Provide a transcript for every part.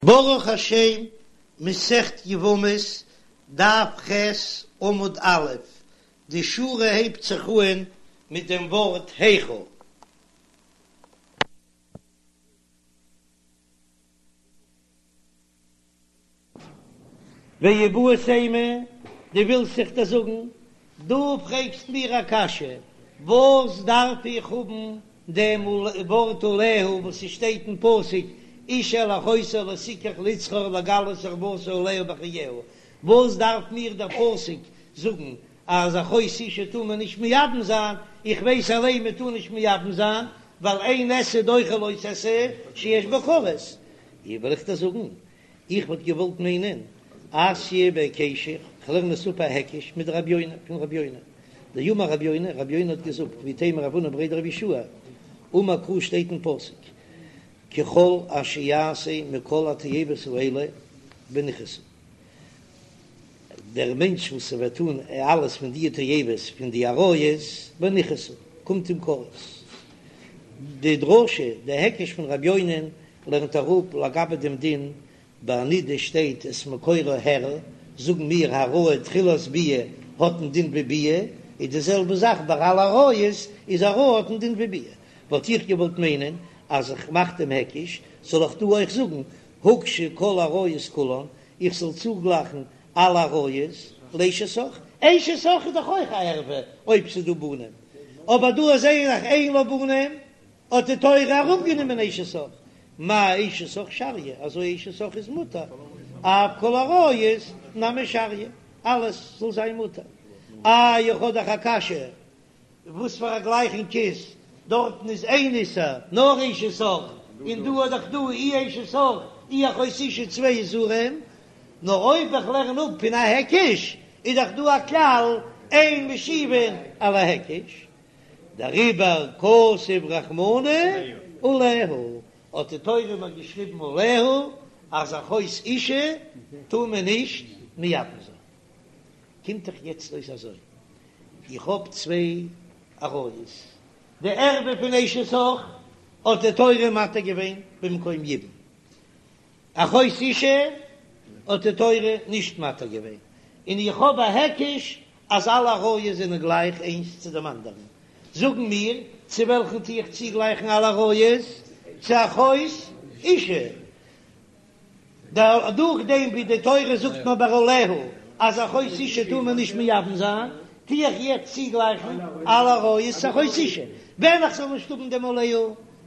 ברוך השם, מסכת יבמות, דף ח', עמוד א', די שורה הייבט זיך אהן מיט דעם ווארט היכא. ואיבעית אימא, דו ווילסט זיך דאס זאגן, דו פרעגסט מיר א קשיא, וואס דארף איך האבן דעם ווארט עליה וואס ס'שטייט אין פסוק אשה אל אחותה לא תקח לצרור לגלות ערותה עליה בחייה, וואס דארף מיר דער פסוק זאגן אז אחות אשה טאר מען נישט מייבם זיין, איך ווייס אליין מען טאר נישט מייבם זיין ווייל אין עשה דוחה לא תעשה שיש בו כרת, איך וועל איך דיר זאגן, איך וואלט געוואלט מיינען אתיא בהיקשא, כ'לערן עס אפ א היקש מדרבי יונה, פון רבי יונה, דאמר רבי יונה, רבי יונה האט געזאגט, ואיתימא רב הונא בריה דרב יהושע, אמר קרא שטייט אין פסוק, ככל אשר יעשה מכל התועבות האלה ונכרתו, דער מענטש וואס וועט טון אלעס פון די תועבות פון די עריות, ונכרתו, קומט אים כרת. די דרשה, די היקש פון רבי יונה'ן לערנט אראפ לגבי דעם דין ביי נידה שטייט את מקורה הערה, זאגן מיר העראה תחילת ביאה האט א דין ווי ביאה, איז די זעלבע זאך ביי אלע עריות, איז העראה האט א דין ווי ביאה. וואלט איך געוואלט מיינען אז איך מאך דעם היקש, זאל איך דא אויך זאגן הוקשו כל העריות כולן, איך זאל צוגלייכן אלע עריות לאשת אח, אשת אח איז דאך אויך א ערווה אויב ס'איז דא בנים, אבער דא זעה איך אין לה בנים, האט די תורה אראפגענומען אשת אח, מה אשת אח שריא, אזוי אשת אח איז מותר, אף כל העריות נמי שריא, אלעס זאל זיין מותר. איי איך האב דאך א קשיא, וואס פאר א גלייכונג איז, דארטן איז איין איסור, נאר אשת אח, און דא האט דאך דא אי אשת אח אי אחות אשה צוויי איסורים, נאר אויב איך לערן אפ פון א היקש, איז דאך דא א כלל אין משיבין על ההיקש, דעריבער כתב רחמנא עליה, האט די תורה מיר געשריבן עליה אז אחות אשה טאר מען נישט מייבם זיין. קומט דאך יעצט אויס אזוי, איך האב צוויי עריות, די ערווה פון אשת אח האט די תורה מתיר געווען במקום יבום, אחות אשה האט די תורה נישט מתיר געווען, און איך האב א היקש אז אלע עריות זענען גלייך איינס צו דעם אנדערן, זאגן מיר, צו וועלכן טו איך צוגלייכן אלע עריות? צו אחות אשה. דורך דעם ווי די תורה זאגט מיר ביי עליה אז אחות אשה טאר מען נישט מייבם זיין, טו איך יעצט צוגלייכן אלע עריות צו אחות אשה. ווען איך זאל נישט האבן דעם עליה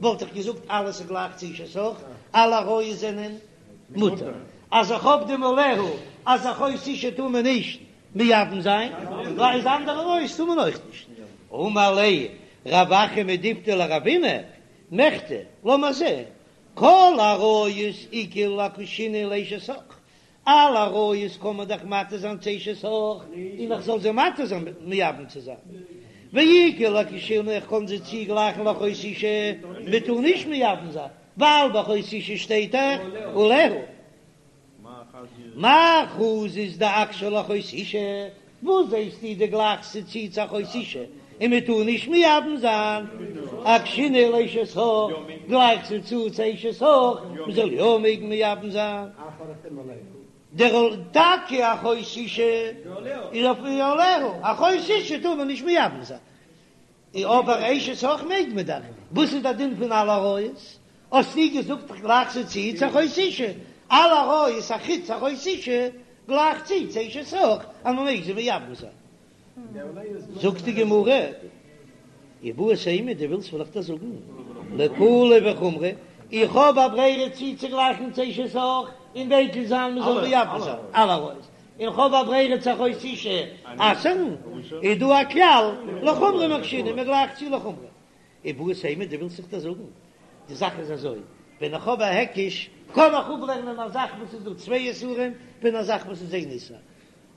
וואלט איך געזאגט אלעס איז גלייך צו אשת אח, אלע עריות זענען מותר. אז איך האב דעם עליה אז אחות אשה טאר מען נישט מייבם זיין, איז אנדערע עריות טאר מען אויך נישט. אמר ליה רב אחא מדיפתי לרבינא, מכדי, לאמיר זען, כל עריות איכא לאקושינהו לאשת אח, אלע עריות קען מען דאך מתיר זיין צו אשת אח, און איך זאל זיי מתיר זיין מייבם צו זיין, ואיכא לאקושינהו איך קען זיי צוגלייכן לאחות אשה, מען טאר נישט מייבם זיין, ווייל ביי אחות אשה שטייט דאך עליה. מאי חזית דאקשיה לאחות אשה, וואס זעסטו דו גלייכסט צו צו צו אחות אשה און מען טאר נישט מייבם זיין, אקשינהו לאשת אח, גלייך זי צו צו אשת אח, מען זאל יא מעגן מייבם זיין. דער טאקע אחות אשה איז אויף עליה, אחות אשה טאר מען נישט מייבם זיין, אבער אשת אח מעג מען דאך, וואס איז דער דין פון אלע עריות? האסטו געזאגט איך גלייך זיי צו צו אחות אשה, אלע עריות אחוץ אחות אשה גלייך צו צו אשת אח אז מען מעג זיי מייבם זיין. זאגט די גמרא, איבעית אימא דו ווילסט וועל איך דיר זאגן, לקולא וחומרא, איך האב א ברירה צוצוגלייכן צו אשת אח און מקיל זיין מען זאל מייבם זיין אלע עריות, און כ'האב א ברירה צו אחות אשה אסר'ן, איז דא א כלל לחומרא מקשינן, מען גלייכט צו לחומרא. איבעית אימא, דו ווילסט זיך דאס זאגן? די זאך איז אזוי, ווען איך האב א היקש, קען איך אפלערנען א זאך וואס איז דא צוויי איסורים פון א זאך וואס איז איין איסור.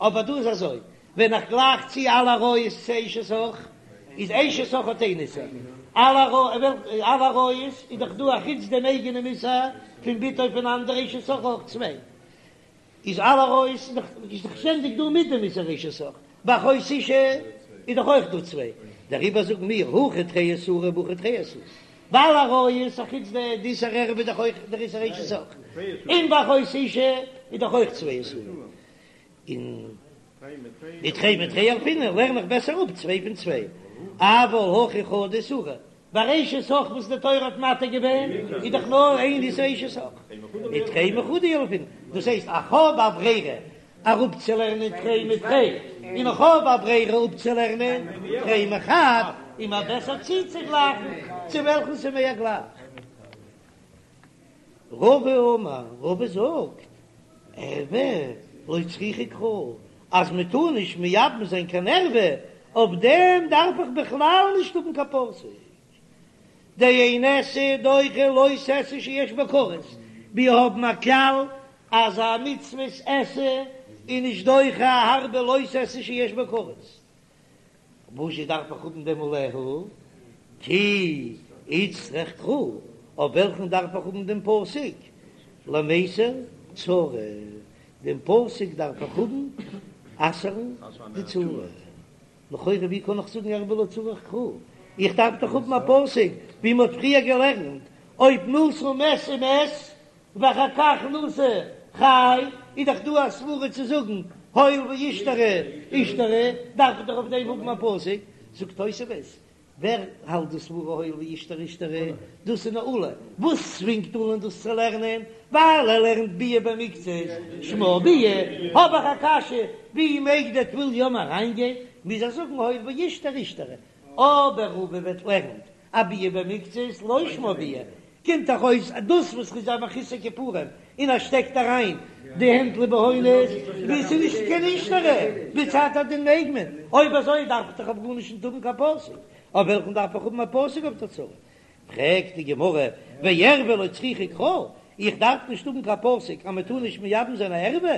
אבער דא איז אזוי, ווען איך גלייך צו אלע עריות צו אשת אח, איז אשת אח האט איין איסור, אלע עריות איז דאך דא אחוץ דעם אייגענעם איסור פון בתו פון אנדערע אשת אח אויך צוויי. איז אלע עריות איז דאך איז דאך שטענדיג דא מיט דעם איסור אשת אח, ביי אחות אשה איז דאך אויך דא צוויי, דעריבער זאגן מיר הכא תרי איסורי והכא תרי איסורי, ווייל עריות אחוץ די איסור ערווה איז דאך אויך דער איסור אשת אח. און ביי אחות אשה איז דאך אויך צוויי איסורים. און ותרי מתרי ילפינן לערן איך בעסער אפ צוויי פון צוויי. אבל הכא חדא איסורא, ביי אשת אח וואס די תורה האט מתיר געווען איז דאך נאר איין איסור אשת אח. ותרי מחדא ילפינן, דאס הייסט איך האב א ברירה אראפצולערנען תרי מתרי, און איך האב א ברירה אפצולערנען תרי מחד, איז מיר בעסער צוצוגלייכן צו וועלכן ס'איז מער גלייך. רבא אמר, רבא זאגט, ערוה לא צריכא קרא, אז מען טאר נישט מייבם זיין קיין ערוה, אויף דעם דארף איך בכלל נישט האבן קיין פסוק. דאין עשה דוחה לא תעשה שיש בו כרת, מיר האבן א כלל אז א מצוות עשה איז נישט דוחה א הארבע לא תעשה שיש בו כרת. וואזשע דארף איך האבן דעם עליה? כי איצטריך קרא, אויף וועלכן דארף איך האבן דעם פסוק? למיסר צרה, דעם פסוק דארף איך האבן אסר'ן די צרה. לכאורה ווי קען איך זאגן ערוה לא צריך קרא? איך דארף דאך האבן א פסוק ווי מ'האט פריער געלערנט, אויב נשא מת ומת ואחר כך נשא חי, איז דאך דא א סברא צו זאגן הואיל ואישתרי אישתרי, דארף איך דאך אויף דעם האבן א פסוק, זאגט תוספות, ווער האלט די סברא הואיל ואישתרי אישתרי, דאס איז נאר עולא, וואס צווינגט עולא'ן דאס צו לערנען? ווייל ער לערנט ביאה במקצת שמה ביאה, האב איך א קשיא, ווי מעג דער טבול יום אריינגיין, מוז ער זאגן הואיל ואישתרי אישתרי, אבער רבא וועט לערנט א ביאה במקצת לא שמה ביאה, קומט דאך אויס אז דאס וואס ר'איז א מחוסר כיפורים און ער שטעקט אריין די הענט לבהונות ווי ס'איז נישט קיין אישתרי, מצד הדין מעג מען, אויב אזוי דארף איך דאך אויף גארנישט נישט האבן קיין פסוק, אויף וועלכן דארף איך האבן א פסוק אויף די צרה? פרעגט די גמרא, וערווה לא צריכא קרא, איך דארף נישט האבן קיין פסוק אז מען טאר נישט מייבם זיין א ערווה,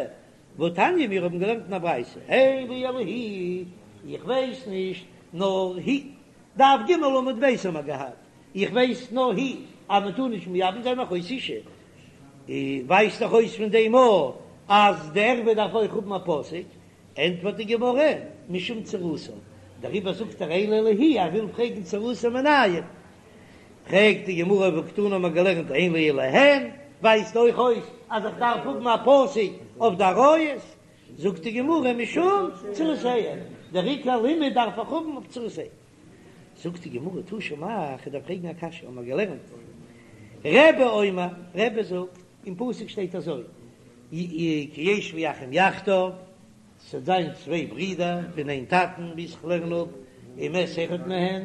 והתניא מיר האבן געלערנט אין א ברייתא, אין לי אלא היא, איך ווייס נישט נאר היא, דף ג עמוד ב' האבן מיר געהאט, איך ווייס נאר היא אז מען טאר נישט מייבם זיין אחות אשה, ווייזט דאך אויס פון דעם א אז די ערווה דארף אויך האבן א פסוק, ענטפערט די גמרא, משום צרתה, דעריבער זאגט ער אין לי אלא היא, ער וויל פרעגן צרתה מנין, פרעגט די גמרא והקתני האבן מיר געלערנט אין לי אלא הן, ווייזט אויך אויס אז איך דארף האבן א פסוק אויף די עריות, זאגט די גמרא משום צרותיהן, דער עיקר לימוד דארף איך האבן אויף צרותיהן. זאגט די גמרא תא שמע, איך דארף פרעגן א קשיא, האבן מיר געלערנט רבי אומר, רבי זאגט, אין פסוק שטייט אזוי, כי ישבו אחים יחדיו, ס'וועט זיין צוויי ברידער פון איין טאטן, ווי איך לערן אפ, ומת אחד מהן,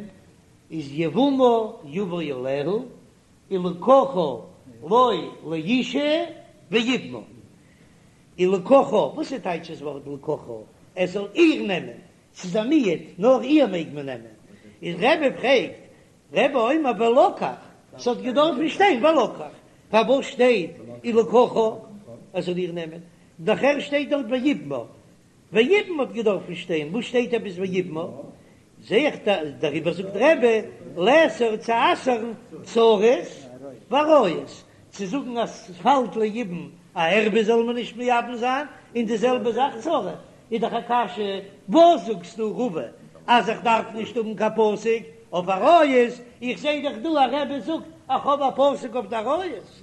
איז יבמה יבא עליה, ולקחה לו לאשה ויבמה. ולקחה, וואס איז טייטש דאס ווארט ולקחה? ער זאל איר נעמען, ס'איז א מיעוט, נאר איר מעג מען נעמען. איז רבי פרעגט, רבי אומר ולקח, ס'האט געדארפן שטיין ולקח, פארוואס שטייט ולקחה, ער זאל איר נעמען? נאכער שטייט דארט ויבמה, ויבם האט געדארפן שטיין, וואס שטייט עפעס ויבמה? זע איך דעריבער זאגט רבי לאסור צו אסר'ן צרות ועריות, צו זאגן אז ס'פאלט ליבום א ערווה זאל מען נישט מייבם זיין, און די זעלבע זאך צרה, איז דאך א קשיא, וואס זאגסטו רבא אז איך דארף נישט האבן קיין פסוק אויף עריות, איך זע דאך דא אז רבי זאגט איך האב א פסוק אויף די עריות,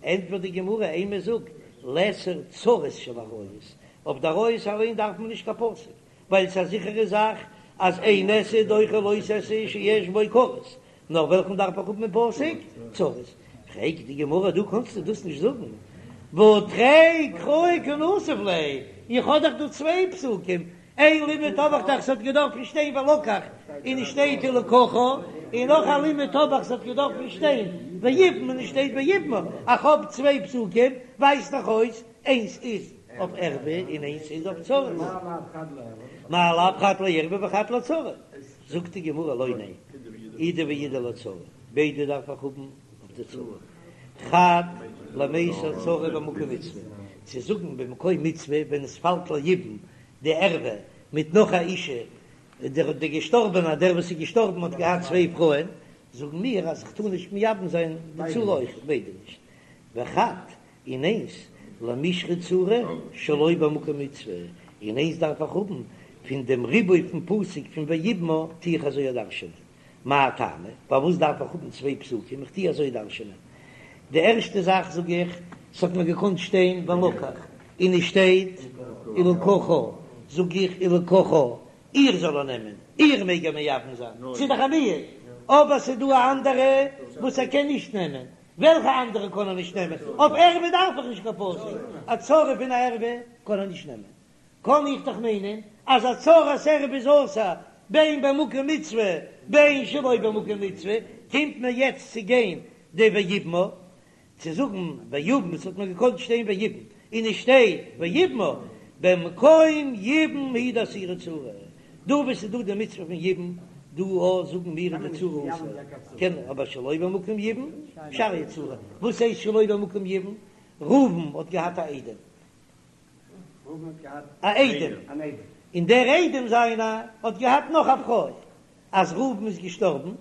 ענטפערט די גמרא אימא זאג לאסור צרות של עריות, אויף די עריות אליין דארף מען נישט קיין פסוק, ווייל ס'איז א זיכערע זאך אז אין עשה דוחה לא תעשה שיש בו כרת, נאר וועלכן דארף איך האבן אין פסוק? צרות. פרעגט די גמרא דא קענסטו דאס נישט זאגן, והא תרי קראי קנסיב ליה, איך האב דאך דא צוויי פסוקים, איין לימוד האב איך דאך ס'האט געדארפן שטיין ולקח און עס שטייט ולקחה, און נאך א לימוד האב איך ס'האט געדארפן שטיין ויבם און עס שטייט ויבמה, איך האב צוויי פסוקים, ווייזט דאך אויס איינס איז אויף ערווה און איינס איז אויף צרות. מאי לאו חד לערווה וחד לצרה? זאגט די גמרא לא ניין, אידי ואידי לצרה, ביידע דארף איך האבן אויף די צרה, חד למיסר צרה במקום מצוה, צו זאגן במקום מצוה ווען עס פאלט ליבום די ערווה מיט נאך א אישה, דער דער געשטארבענער דער וואס איז געשטארבן האט געהאט צוויי פרויען, זאגן מיר אז כ'טאר נישט מייבם זיין די צרה אויך, ביידע נישט, וחד און איינס למישרי צרה שלא במקום מצוה, און איינס דארף איך האבן פון דעם ריבוי פון פסוק פון ויבמה טו איך אזוי דרש'ענען, מאי טעמא, פארוואס דארף איך האבן צוויי פסוקים, איך טו אזוי דרש'ענען, די ערשטע זאך זאג איך. ס'האט מיר געקאנט שטיין ולקח, און עס שטייט ולקחה, זאג איך ולקחה, איר זאל ער נעמען, איר מעג ער מייבם זיין, ס'איז דאך א מיעוט, אבער ס'איז דא א אנדערע וואס ער קען נישט נעמען, וועלכע אנדערע קען ער נישט נעמען? אויף ערווה דארף איך נישט קיין פסוק, א צרה פון א ערווה קען ער נישט נעמען, קען איך דאך מיינען אז א צרת ערווה איז אסור בין במקום מצוה בין שלא במקום מצוה, קומט מיר יעצט צו גיין די ויבמה צו זאגן ויבם, עס האט מיר געקאנט שטיין ויבם און עס שטייט ויבמה, במקום יבום הוא דאסירא צרה, דא וואו ס'איז דא די מצוה פון יבום, דא א זאגן מיר איז די צרה אסור, קען אבער שלא במקום יבום שריא צרה, וואס הייסט שלא במקום יבום? ראובן האט געהאט א איידעם, א איידעם, און דער איידעם זיינער האט געהאט נאך א פרוי, אז ראובן איז געשטארבן,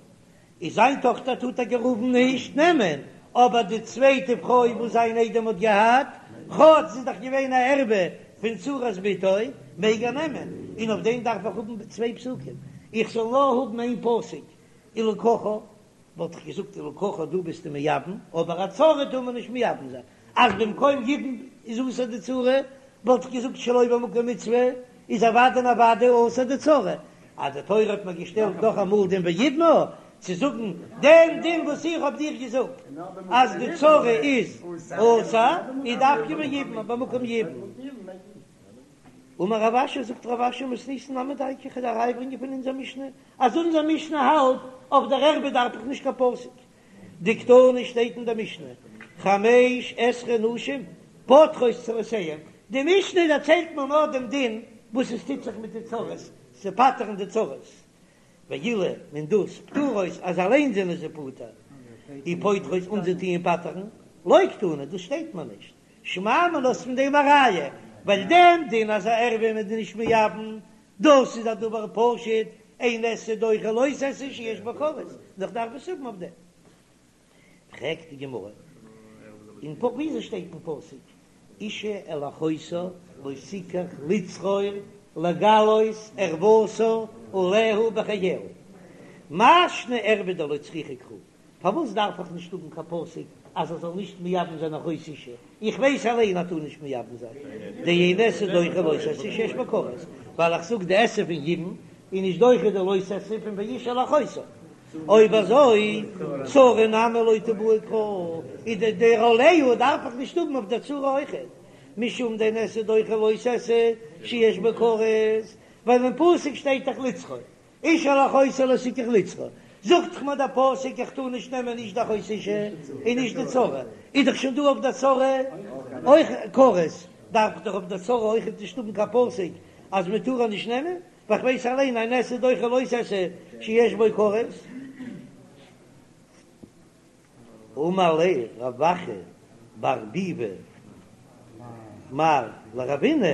איז זיין טאכטער טאר טאקע ראובן נישט נעמען, אבער די צווייטע פרוי וואס זיין איידעם האט געהאט, כאטש זי איז דאך געווען א ערווה פון צרת בתו, מעג ער נעמען, און אויף דעם דארף איך האבן צוויי פסוקים, איך זאל נאר האבן איין פסוק, ולקחה. וואלט איך געזאגט ולקחה דא ביסטו מייבם, אבער א צרה טאר מען נישט מייבם זיין, אז במקום יבום איז אסור די צרה, וואלט איך געזאגט שלא במקום מצוה איז אוודאי און אוודאי אסור די צרה, אז די תורה האט מיר געשטעלט נאך אמאל דעם ויבמה צו זאגן דעם דין וואס איך האב דיר געזאגט אז די צרה איז אסור, איז דווקא ויבמה במקום יבום. אמר רב אשי, זאגט רב אשי מתניתין נמי דייקא, כ'וועל א ראיה ברענגען פון אונזער משנה, אז אונזער משנה האלט אויף דער ערווה דארף איך נישט קיין פסוק, דקתני שטייט אין דער משנה, חמש עשרה נשים פוטרות צרותיהן, די משנה דערציילט מיר נאר דעם דין וואס עס טוט זיך מיט די צרות, צו פטר'ן די צרות, ואילו און דאס פטורות אז אליין זענען זיי פטור, ופוטרות און זיי טוען פטר'ן, לא קתני, דאס שטייט מיר נישט. שמע מינה איז פון דעם א ראיה, ווייל דעם דין אז א ערווה איז מען נישט מייבם, דאס איז א דבר פשוט, אין עשה דוחה לא תעשה שיש בו כרת, נאר כ'דארף עס האבן אויף דעם. פרעגט די גמרא, און וויאזוי שטייט אין פסוק, אשה אל אחותה לא תקח לצרור לגלות ערותה עליה בחייה, מאי שנא ערוה דלא צריכא קרא, פארוואס דארף איך נישט האבן קיין פסוק אז ער זאל נישט מייבם זיין אחות אשה? איך ווייס אליין אז טאר נישט מייבם זיין, דאין עשה דוחה לא תעשה שיש בו כרת, ווייל איך זאג די עשה פון יבום איז נישט דוחה די לא תעשה פון ואשה אל אחותה. אויב אזוי צרה נמי לא תיבעי קרא, איז די דער עליה דארף איך נישט האבן אויף דער צרה אויכעט, משום דאין עשה דוחה לא תעשה שיש בו כרת, ווייל אין פסוק שטייט דאך לצרור. אשה אל אחותה לא תקח לצרור, זאגט דאך מיר דער פסוק איך טאר נישט נעמען נישט די אחות אשה און נישט די צרה, איז דאך שוין דא אויף די צרה אויך כרת, דארף איך דאך אויף די צרה אויכעט נישט האבן קיין פסוק אז מען טאר איר נישט נעמען, ווייל איך ווייס אליין אין עשה דוחה לא תעשה שיש בו כרת. אמר ליה רב אחא בר ביבי מר לרבינא,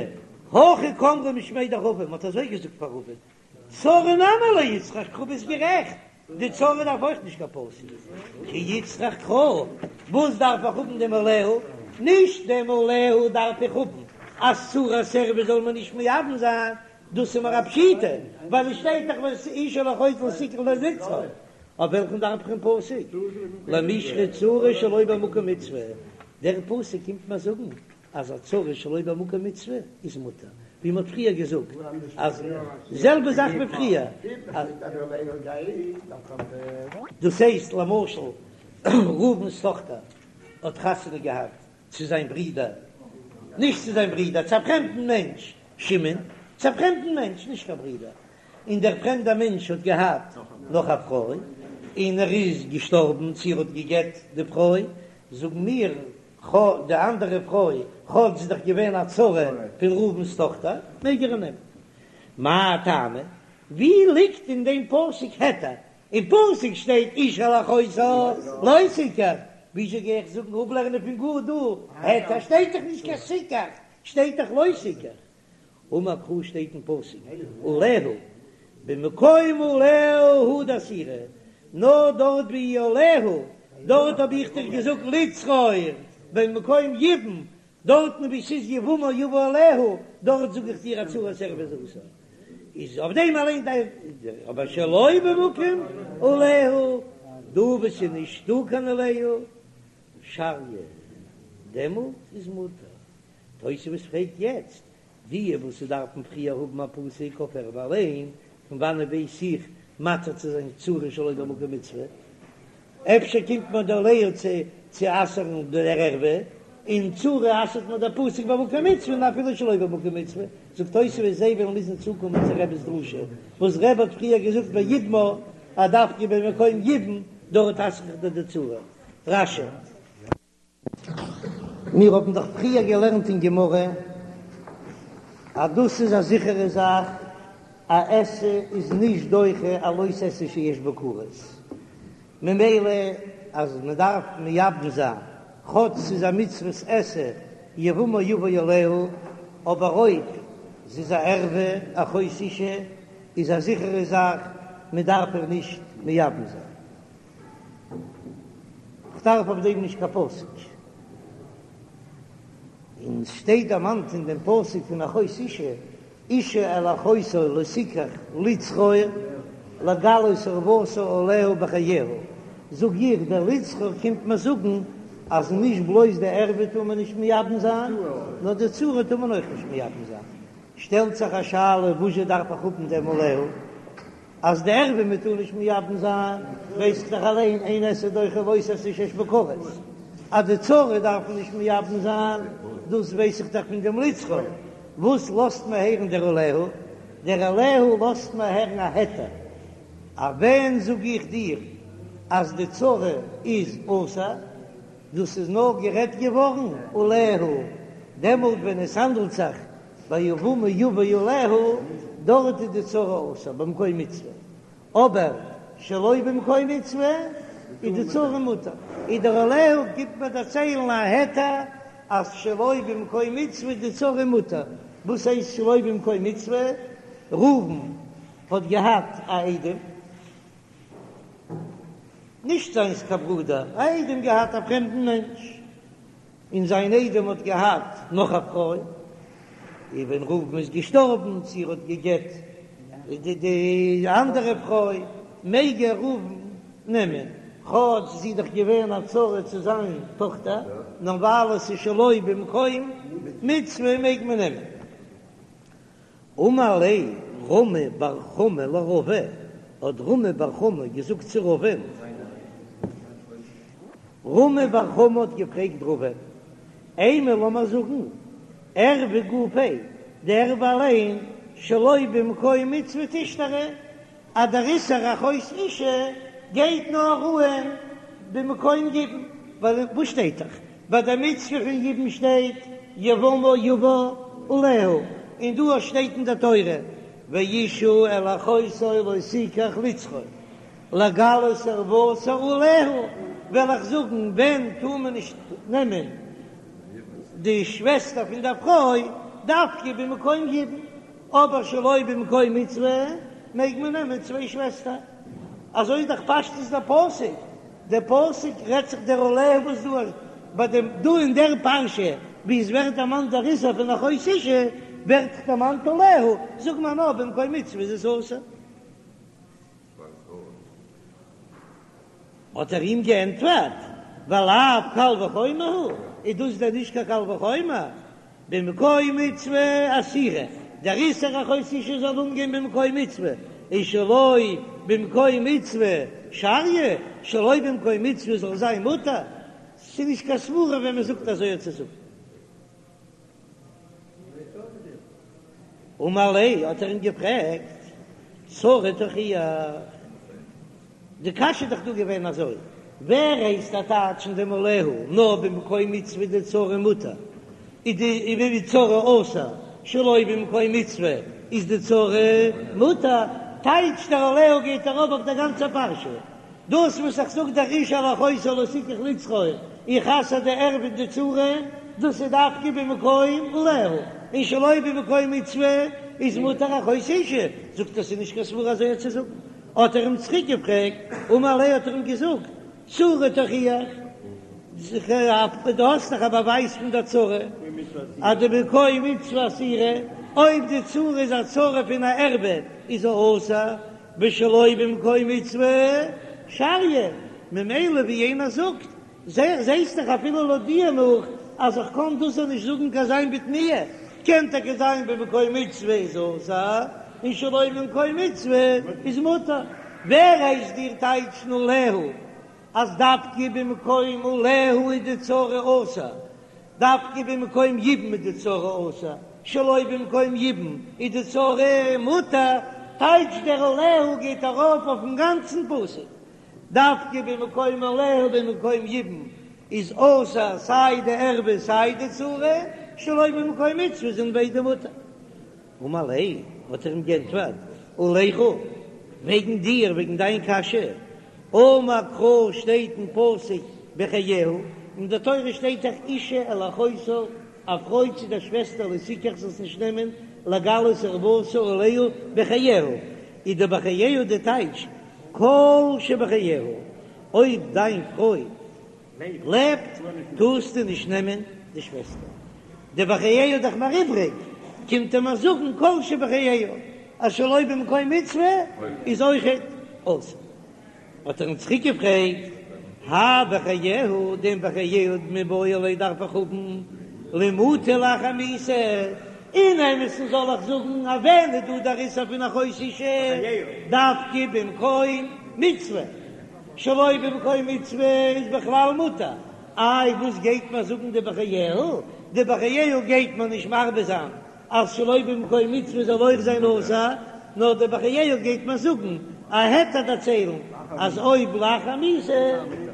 הכי קאמרי משמיה דרבא, מען האט אזוי געזאגט פאר רבא, צרה נמי לא איצטריך קרא, ביסט גערעכט, די צרה דארף אויך נישט קיין פסוק, כי איצטריך קרא, וואס דארף איך האבן דעם עליה? נישט דעם עליה דארף איך האבן אז צרת ערוה זאל מען נישט מייבם זיין, דאס איז מיר א פשיטא, ווייל עס שטייט דאך אשה אל אחותה לא תקח לצרור, אויף וועלכן דארף איך דעם פסוק? למישרי צרה שלא במקום מצוה, דער פסוק קומט מיר זאגן אז א צרה שלא במקום מצוה איז מותר, ווי מ'האט פריער געזאגט אז זעלבע זאך ווי פריער, דאס הייסט למשל ראובן'ס טאכטער האט חתונה געהאט צו זיין ברודער, נישט צו זיין ברודער, צו א פרעמדן מענטש, שמעון, צו א פרעמדן מענטש, נישט קיין ברודער, און דער פרעמדער מענטש האט געהאט נאך א פרוי, און ער איז געשטארבן צו ער האט גע'גט די פרוי, זאגן מיר כאטש די אנדערע פרוי, כאטש זי איז דאך געווען א צרה פון ראובן'ס טאכטער, מעג ער איר נעמען. מאי טעמא? ווי ליגט אין דעם פסוק היתר? אין פסוק שטייט אשה אל אחותה לא תקח, וויאזוי גיי איך זאגן אפלערנען פון גאר דא היתר? שטייט דאך נישט קיין תקח, שטייט דאך לא תקח. אמר קרא שטייט אין פסוק עליה במקום עליה הוא דאסירא, נאר דארט ווי עליה, דארט האב איך דיר געזאגט לצרור במקום יבום, דארטן ווי ס'איז יבמה יבא עליה, דארט זאג איך דיר א צרת ערוה איז אסור, איז אויף דעם אליין די, אבער שלא במקום עליה, דא וואו ס'איז נישטא קיין עליה, שריא. דעמאלט איז מותר. תוספות פרעגט יעצט, די וואס ס'דארפן פריער האבן א פסוק אויף ערווה אליין, פון וואנעט ווייס איך מתיר צו זיין צרה שלא במקום מצוה? אפשר קומט מיר דער עליה צו צו אסר'ן דער ערווה, און צרה אסר'ט מיר דער פסוק במקום מצוה און אפילו שלא במקום מצוה, זאגט תוספות זיי וועלן מוזן צוקומען צו רבי'ס דרשה וואס רבי האט פריער געזאגט ביבמה אז דווקא במקום יבום דארט אסר איך דיר די צרה. רש"י. מיר האבן דאך פריער געלערנט אין גמרא אז דאס איז א זיכערע זאך, א עשה איז נישט דוחה א לא תעשה שיש בו כרת, ממילא אז מען דארף מייבם זיין, כאטש ס'איז א מצוות עשה יבמה יבא עליה, אבער אויב ס'איז א ערווה, אחות אשה, איז א זיכערע זאך מען דארף איר נישט מייבם זיין. כ'דארף אויף דעם נישט קיין פסוק. און ס'שטייט דערמאנט אין דעם פסוק פון אחות אשה, אשה אל אחותה לא תקח לצרור לגלות ערותה עליה בחייה. זאג איך, דער לצרור קומט מיר זאגן אז נישט בלויז די ערווה טאר מען נישט מייבם זיין, נאר די צרה טאר מען אויך נישט מייבם זיין. שטעלט זיך א שאלה, וואזשע דארף איך האבן דעם עליה? אז די ערווה מען טאר נישט מייבם זיין, ווייס איך דאך אליין אין עשה דוחה לא תעשה שיש בו כרת, אז די צרה דארף מען נישט מייבם זיין, דאס ווייס איך דאך פון דעם לצרור, וואס לאזט מיר הערן דער עליה? דער עליה לאזט מיר הערן א היתר, אז ווען זאג איך דיר אז די צרה איז אסור, דאס איז נאר גערעדט געווארן עליה, דעמאלט ווען עס האנדלט זיך ביבמה יבא עליה, דארט איז די צרה אסור במקום מצוה, אבער שלא במקום מצוה איז די צרה מותר, איז דער עליה קומט מיר דערציילן א היתר אז שלא במקום מצוה איז די צרה מותר, וואס הייסט שלא במקום מצוה? ראובן האט געהאט א איידעם, נישט זיינס קיין ברודער, א איידעם געהאט א פרעמדן מענטש, און זיין איידעם האט געהאט נאך א פרוי, און ווען ראובן איז געשטארבן צו ער האט גע'גט די די אנדערע פרוי, מעג ער ראובן נעמען, כאטש זי איז דאך געווען א צרה צו זיין טאכטער, נאר ווייל עס איז שלא במקום מצוה מעג מען נעמען. אמר ליה רמי בר חמא לרבא, האט רמי בר חמא געזאגט צו רבא'ן, רמי בר חמא האט געפרעגט רבא'ן, אימא לאמער זאגן, ערווה גופה, די ערווה אליין, שלא במקום מצוה תשתרי, אז דער איסור אחות אשה גייט נאר אהן במקום יבום, ווייל וואס שטייט דאך ביי די מצוה פון יבום שטייט יבמה יבא עליה, און דא שטייט אין די תורה ואשה אל אחותה לא תקח לצרור לגלות ערותה עליה, וועל איך זאגן ווען טאר מען נישט נעמען די שוועסטער פון דער פרוי דווקא במקום יבום. אבער שלא במקום מצוה מעג מען נעמען צוויי שוועסטער, אזוי איז דאך פשטות דער פסוק, דער פסוק רעדט זיך דער עליה וואס דא ביי דעם דא אין דער פרשה ווי עס ווערט דערמאנט דער איסור פון אחות אשה ווערט דערמאנט עליה, זאג מיר נאר במקום מצוה איז עס אסור. האט ער אים געענטפערט, ולאו קל וחומר הוא, איז דאס דען נישט קיין קל וחומר? במקום מצוה אסירא, דער איסור אחות אשה זאל אנגיין במקום מצוה, און שלא במקום מצוה שריא, שלא במקום מצוה זאל זיין מותר, ס'איז נישט קיין סברא ווען מ'זאגט אזוי צו זאגן. אמר ליה, האט ער אים געפרעגט, צרה תוכיח, די קשיא איז דאך דא געווען אזוי, ווער הייסט דיר טייטשן דעם עליה נאר במקום מצוה די צרה מותר, איז די ווי צרה אסור, שלא במקום מצוה איז די צרה מותר, טייטש דער עליה גייט ארויף אויף דער גאנצער פרשה, דאס וואס איך זאג דער אשה אל אחותה לא תקח לצרור, איך אסר די ערווה און די צרה, דאס איז דווקא במקום עליה, און שלא במקום מצוה איז מותר אחות אשה, זאגט ער ס'איז נישט קיין סברא אזוי צו זאגן, האט ער אים צוריק געפרעגט, אמר ליה האט ער אים געזאגט, צרה תוכיח, דו האסט דאך א באווייז פון דער צרה אז דבמקום מצוה אסירא, אויב די צרה איז א צרה פון א ערווה איז זי אסור, ושלא במקום מצוה שריא, ממילא ווי יענער זאגט, זעסט דאך אפילו לויט דיר נאך. אז איך קען דאס נישט זאגן קיין זיין בתמיה, קען טאקע זיין במקום מצוה איז אסור און שלא במקום מצוה איז מותר, ווער הייסט דיר טייטשן עליה אז דווקא במקום עליה איז די צרה אסור, דווקא במקום יבום איז די צרה אסור, שלא במקום יבום איז די צרה מותר, טייטש דער עליה גייט ארויף אויפן גאנצן פסוק, דווקא במקום עליה במקום יבום איז אסור סיי די ערווה סיי די צרה, שלא במקום מצוה זענען ביידע מותר. אמר ליה, האט ער אים גענטפערט, עליך, וועגן דיר, וועגן דיין קשיא, אמר קרא שטייט אין פסוק בחייה, אין די תורה שטייט דאך אשה אל אחותה, א פרוי צו דער שוועסטער לא תקח זאלסט נישט נעמען לגלות ערותה עליה בחייה, איז די בחייה די טייטש כל שבחייה, אויב דיין פרוי לעבט טארסטו נישט נעמען די שוועסטער, די בחייה איז דאך מיר איבריג, קומט ער מיר זאגן כל שבחייה אז שלא במקום מצוה איז אויכעט אסור. האט ער אים צוריק געפרעגט, האי בחייה, דעם בחייה מיבעי ליה דארף איך האבן למעוטי לאחר מיתה, אין אמת'ן זאל איך זאגן אז ווען איז דא דער איסור פון אחות אשה דווקא במקום מצוה, שלא במקום מצוה איז בכלל מותר, איי וואס גייט מיר זאגן די בחייה? די בחייה גייט מיר נישט מרבה זיין אז שלא במקום מצוה זאל אויך זיין אסור, נאר די בחייה גייט מיר זאגן א היתר דערציילן אז אויב לאחר מיתה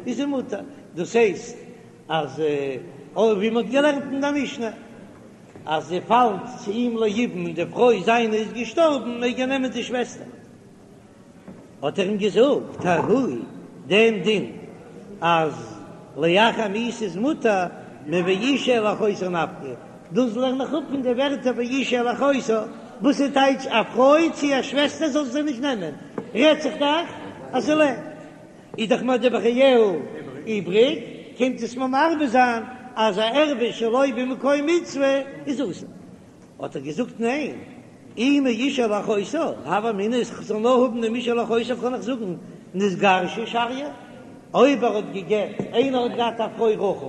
איז זי מותר, דאס הייסט אז אויב ווי מען האט געלערנט אין די משנה אז זי פאלט צו אים ליבום און די פרוי זיינע איז געשטארבן מעג ער נעמען די שוועסטער. האט ער אים געזאגט, ההוא, דעם דין אז לאחר מיתה איז מותר, מואשה אל אחותה נפקא, דאס לערן איך אפ פון די ווערטער ואשה אל אחותה, וואס איז טייטש א פרוי צו א שוועסטער זאל זי נישט נעמען, רעדט זיך דאך אז זי לעבט, איז דאך מיר די בחייה איבריג, קומט עס מיר מרבה זיין אז א ערווה שלא במקום מצוה איז אסור. האט ער געזאגט ניין, אי מאשה אל אחותה, הוה אמינא איך זאל נאר האבן דעם אשה אל אחותה קען איך זאגן נתגרשה שריא, אויב ער האט גע'גט, איינער האט געהאט א פרוי רחל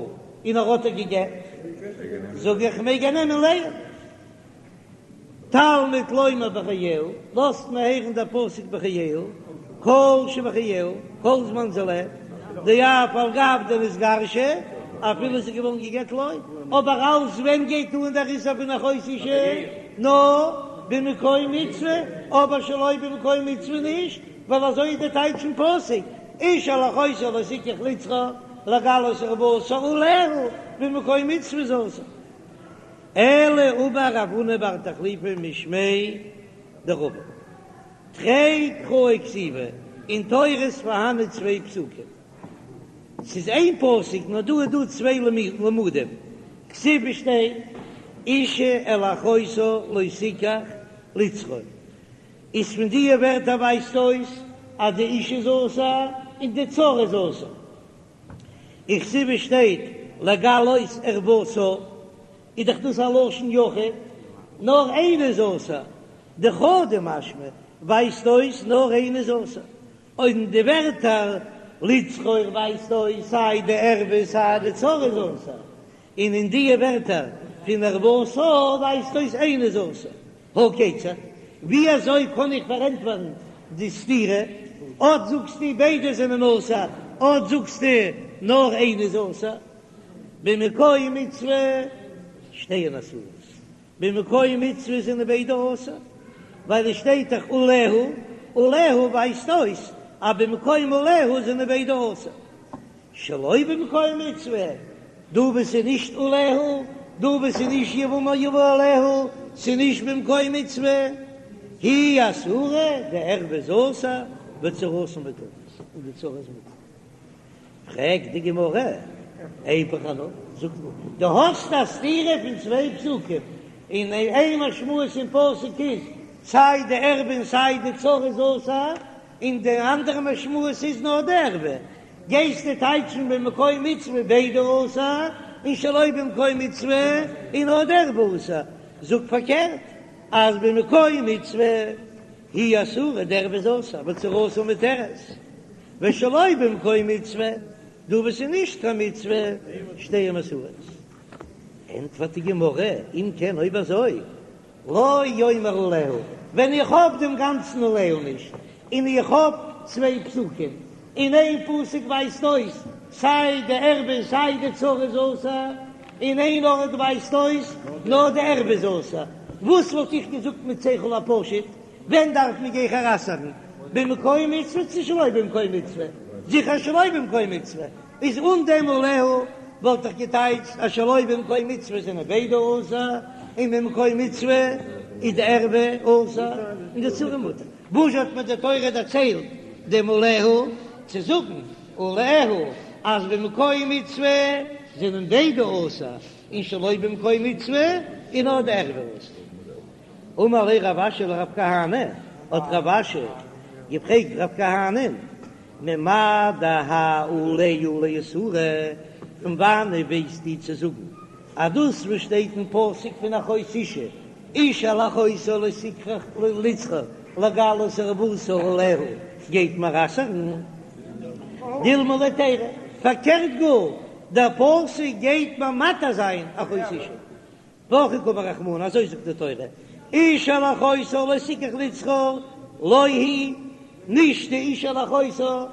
און ער האט איר גע'גט, זאג איך מעג ער נעמען לאה. תלמוד לומר בחייה, לאזט מען הערן דער פסוק בחייה, כל שבחייה, כל זמן זי לעבט, דאף על גב דנתגרשה, אפילו זי איז געווארן גע'גט לא, אבער אלס ווען גייט אן דער איסור פון אחות אשה? נאר במקום מצוה, אבער שלא במקום מצוה נישט, ווייל אזוי איז די טייטש אין פסוק, אשה אל אחותה לא תקח לצרור לגלות ערותה עליה, במקום מצוה איז אסור. אלא אמר רב הונא בר תחליפא משמיה דרבא. תרי קראי כתיבי, אין תורה איז פארהאנען צוויי פסוקים. ס'איז איין פסוק נאר דא איז דא צוויי לימודים. כתיב שטייט אשה אל אחותה לא תקח לצרור. איז פון דיע ווערטער ווייזט אויס אז די אשה איז אסור און די צרה איז אסור. וכתיב שטייט לגלות ערותה איז דאך דאס א לשון יחיד, נאר איינע איז אסור, דחדא משמע ווייזט אויס נאר איינע איז אסור, און די ווערטער לצרור ווייזט אויס סיי די ערווה סיי די צרה איז אסור, און אין דיע ווערטער פון ערותה ווייזט אויס איינע איז אסור. הא כיצד? ווי אזוי קען איך פארענטפערן די סתירה? אט זאגסטו ביידע זענען אסור, אט זאגסטו נאר איינע איז אסור. במקום מצוה שתיהן אסורות, במקום מצוה זענען ביידע אסור, ווייל עס שטייט דאך עליה, עליה ווייזט אויס אז במקום עליה זענען ביידע אסור. שלא במקום מצוה, דא וואו ס'איז נישט עליה, דא וואו ס'איז נישט יבמה יבא עליה, ס'איז נישט במקום מצוה, היא אסורה, די ערווה איז אסור, וצרתה מותרת, און די צרה איז מותר. פרעגט די גמרא, איפוך אנא, זאג נאר, דו האסט א סתירה פון צוויי פסוקים, און איין משמעות אין פסוק איז סיי די ערווה און סיי די צרה איז אסור, און די אנדערע משמעות איז נאר די ערווה, גייסטו טייטשן במקום מצוה ביידע אסור, און שלא במקום מצוה איז נאר די ערווה אסור, זאג פארקערט אז במקום מצוה היא אסורה די ערווה איז אסור וצרתה מותרת, ושלא במקום מצוה דא וואס איז נישט קיין מצוה שתיהן אסורות. ענטפערט די גמרא, אם כן אויב אזוי, לא יאמר עליה, ווען איך האב דעם גאנצן עליה נישט, און איך האב צוויי פסוקים, אין איין פסוק ווייזט אויס סיי די ערווה און סיי די צרה איז אסור, אין איין ארט ווייזט אויס נאר די ערווה איז אסור, וואס וואלט איך געזאגט מיט שכל הפשוט, ווען דארף מען גיכער אסר'ן, במקום מצוה צו שלא במקום מצוה? זיכער שלא במקום מצוה, איז אן דעם עליה וואלט איך געטייטשט אז שלא במקום מצוה זענען ביידע אסור, און במקום מצוה איז די ערווה אסור און די צרה מותר. וואס האט מיר די תורה דערציילט דעם עליה צו זאגן עליה אז במקום מצוה זענען ביידע אסור און שלא במקום מצוה איז נאר די ערווה אסור? אמר ליה רב אשי לרב כהנא, האט רב אשי געפרעגט רב כהנא'ן, ממאי דהאי עליה לאיסורא, פון וואנען ווייסטו צו זאגן אז דאס וואס שטייט אין פסוק פון אחות אשה, איש אל אחותה לא תקח לצרור לגלות ערותה עליה, גייט מיר אסר'ן דילמא להיתירא, פארקערט גאר, דער פסוק גייט מיר מתיר זיין אחות אשה. והכי קאמר רחמנא, אזוי זאגט די תורה, איש אל אחותה לא תקח לצרור, לא היא, נישט די איש אל אחותה,